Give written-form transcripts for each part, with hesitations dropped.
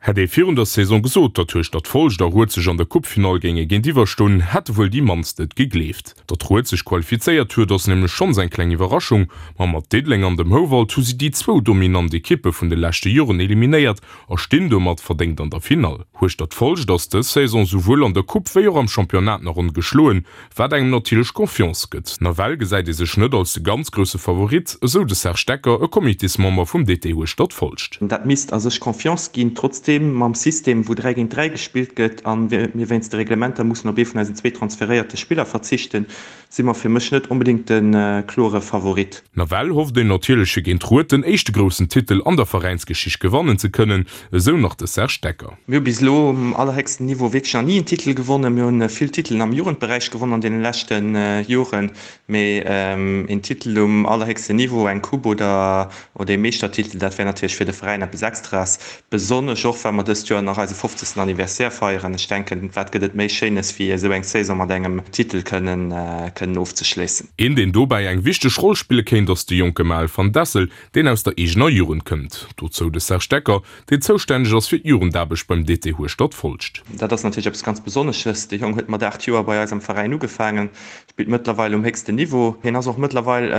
Hätt ee virun der Saison gesot, datt Hueschtert Folscht a Rued sech an der Coupefinall géinge géintiwwer stoen, hätte wuel déi mannst et gegleeft. Datt Rued sech qualifizéiert huet, ass nämlech schonns eng kleng Iwwerraschung, ma mat Diddeleng an dem Houwald hu si déi zwou dominant Ekippe vun de leschte Joren eliminéiert a stinn domat verdéngt an der Finall. Hueschtert Folscht ass dës Saison souwuel an der Coupe wéi och am Championnat nach ongeschloen, Wat engem natierlech Confiance gëtt. Nawell gesäit ee sech net als de ganz grousse Favorit, esou de Serge Decker, e Comitésmember vum DT Hueschtert-Folscht. Dat misst a sech Confiance ginn. Trotzdeem, mam System, wou 3 géint 3 gespillt gëtt a mir wéinst de Reglementer mussen op ee vun eisen zwee transferéierte Spiller verzichten, si mer fir mech net onbedéngt de klore Favorit. Nawell hofft een natierlech fir géint Rued den éischte groussen Titel an der Veräinsgeschicht gewannen ze kënnen, esou nach de Serge Decker. Mir hu bis elo um allerhéchsten Niveau wierklech nach ni en Titel gewonnen. Mir hu vill Titelen am Jugendberäich gewonnen an deene leschte Joren, mee een Titel um allerhéchsten Niveau, eng Coupe oder oder ee Meeschtertitel, dat wär natierlech fir de Veräin eppes Extraes, besonnesch och well mer dëst Joer nach eise 50. Anniversaire feieren. Ech denken, wat gëtt et méi Schéines wéi esou eng Saison mat engem Titel kënnen kënnen ofzeschléissen. Een deen dobäi eng wichteg Roll spille kéint ass de jonke Maël van Dessel, deen aus der eegener Jugend kënnt. Dozou de Serge Decker, deen zoustänneg ass fir d'Jugendaarbecht beim DT Hueschtert-Folscht. Dat ass natierlech eppes ganz Besonnesches. De Jong huet mat 8 Joer bei eis am Veräin ugefaangen, spillt mëttlerweil um héchsten Niveau. Hien ass och mëttlerweil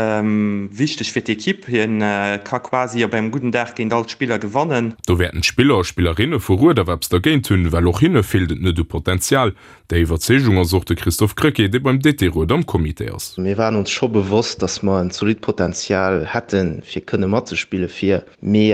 wichteg fir d'Ekipp. Hien ka quasi op engem gudden Dag géint all d'Spiller gewannen. Do wäerten d'Spiller a Spillerinne vu Rued awer eppes dergéint hunn, well och hinne feelt et net u Potenzial. Där Iwwerzeegung ass och de Christophe Krecké, dee beim DT Rued am Comité ass. Mir waren ons scho bewosst, dass mer en zolidd Potenzial hätten, fir kënne matzespille fir. Mee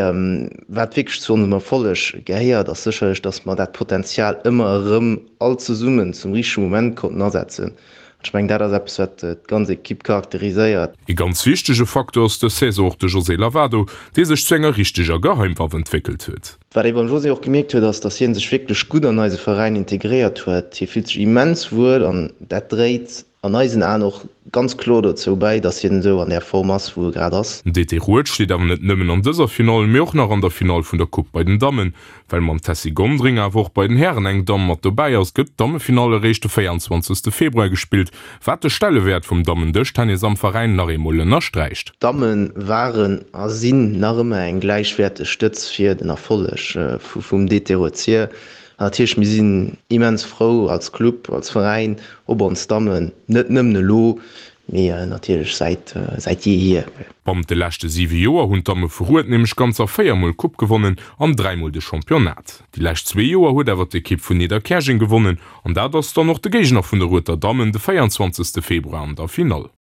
wat wierklech zu onsem Erfolleg gehéiert, ass sécherlech, dass mer dat Potenzial ëmmer erëm all zesummen zum richtege Moment konnten asetzen. An ech mengen, dat ass eppes, wat d'ganz Ekipp charakteriséiert. Ee ganz wichtege Facteur ass dës Saison och de José Lavado, dee sech zu enger richteger Geheimwaff entwéckelt huet. Wat ee beim José och gemierkt huet, ass, dass hie sech wierklech gutt an eise Veräin integréiert huet. Hie fillt sech immens wuel an dat dréit an eisen Aen och ganz kloer dozou bäi, dass hien esou an där Form ass, wou e grad ass. Den DT Rued steet awer net nëmmen an dëser Finall, mee och nach an der Finall vun der Coupe bei den Dammen. Well mam Tessy Gondring awer och bei den Hären eng Damm mat dobäi ass, gëtt d'Dammefinall eréischt de 24. Februar gespillt, wat de Stellewäert vum Dammen-Dëschtennis am Veräin nach eemol ënnersträicht. D'Damme waren a sinn nach ëmmer eng gläichwäerteg Stëtz fir den Erfolleg vum DT Rued-Sir. An natierlech, mir sinn immens frou als Club, als Veräin op ons Dammen, net nëmmen elo, mee natierlech säit säit jeehier. Bannent de leschte 7 Joer hunn d'Damme vu Rued nämlech ganzer 4 Mol d'Coupe gewonnen an 3 Mol de Championnat. Déi lescht zwee Joer huet awer d'Ekipp vun Nidderkäerjeng gewonnen an dat ass dann och de Géigner vun de Ruedter Dammen de 24 Februar an der Finall.